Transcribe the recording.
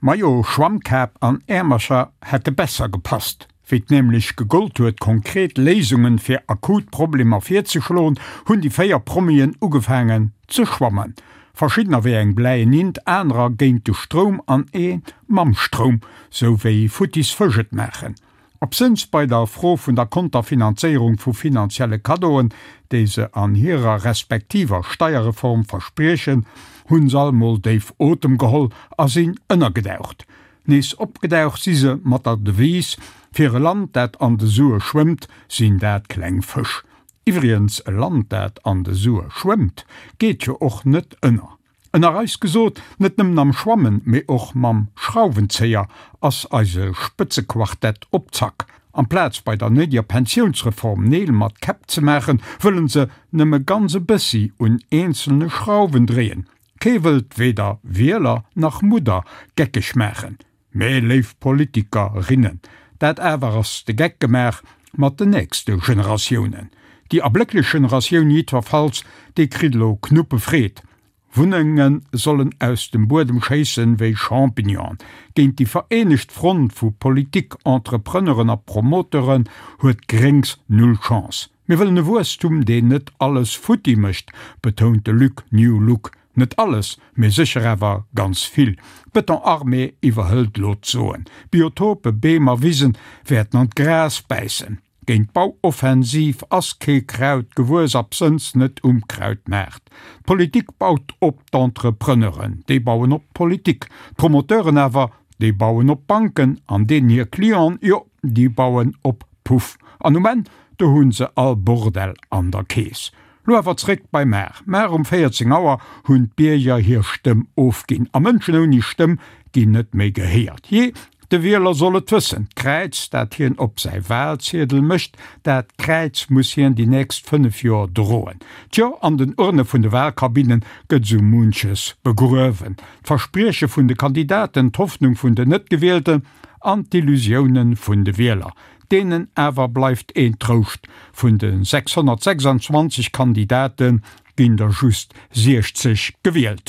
Majo, Schwammkap an Äermercher hätte besser gepasst. Wéi 't nämlech gegollt huet konkret Léisungen fir akut Problemer virzeschloen, hunn déi 4 Promien ugefaangen ze schwammen. Verschiddener wéi eng bläien Int, anerer géint de Stroum an ee mam Stroum, sou wéi futtis Fësch et maachen. Absënns bei der Fro vun der Konterfinanzéierung vu finanzielle Kaddoen, déi se an hirer respektiver Steierreform verspriechen, hunn se all mol déif Otem geholl a sinn ënnergedaucht. Nees opgedaucht si se mat der Devise, Fir e Land, dat an de Sue schwëmmt, sinn dat kleng Fësch. Iwwrigens, e Land, dat an de Sue schwëmmt, geet jo och net ënner. Ënner eis gesot, net nëmmen am Schwammen, mee och mam Schrauwenzéier ass eise Spëtzequartett op Zack. Amplaz bei der néideger Pensiounsreform Neel mat Käpp ze maachen, wëllen se nëmme ganz e bëssi un eenzelne Schrauwen dréien. Kee wëllt weder Wieler nach Mudder geckeg maachen. Mee léif Politikerinnen, dat awer ass de Geck gemaach mat den nächste Generatiounen. Déi erblécklech Generatioun jiddwerfalls, déi kritt elo Knuppefreed. Wunnenge sollen aus dem Buedem schéissen wéi Champignonen. Géint déi vereenegt Front vu Politik, Entrepreneuren a Promoteuren huet Gréngs null Chance. Mir wëllen e Wuesstum, deen net alles futti mécht, betount de Luc New Look. Net alles, mee sécher awer ganz vill. D'Beton-Armée iwwerhëlt lo d'Soen. Biotope, Beem a Wisen wäerten an d'Gras bäissen. Géint d'Bauoffensiv ass kee Kraut gewuess, absënns net um Krautmaart. D'Politik baut op d'Entrepreneuren, déi bauen op d'Politik. D'Promoteuren awer, déi bauen op d'Banken an deenen hir Clienten, jo, déi bauen op Puff. An um Enn, do hu se all Bordell an der Keess. Lo awer zréck bei mar. Mar um 14 Auer hunn d'Bierger hir Stëmm ofginn. A Mënschen ouni Stëmm ginn net méi gehéiert. Jee, de Wieler soll et wëssen, d'Kräiz, dat hien op säi Wahlziedel mécht, dat Kräiz muss hien déi nächst 5 Joer droen. Tjo, an den Urne vun de Wahlkabinne gëtt sou munches begruewen. D'Versprieche vun de Kandidaten, d'Hoffnung vun den Net-Gewielten an d'Illusioune vun de Wieler. Deenen awer bleift een Trouscht, Vun de 626 Kandidate ginn der just 60 gewielt.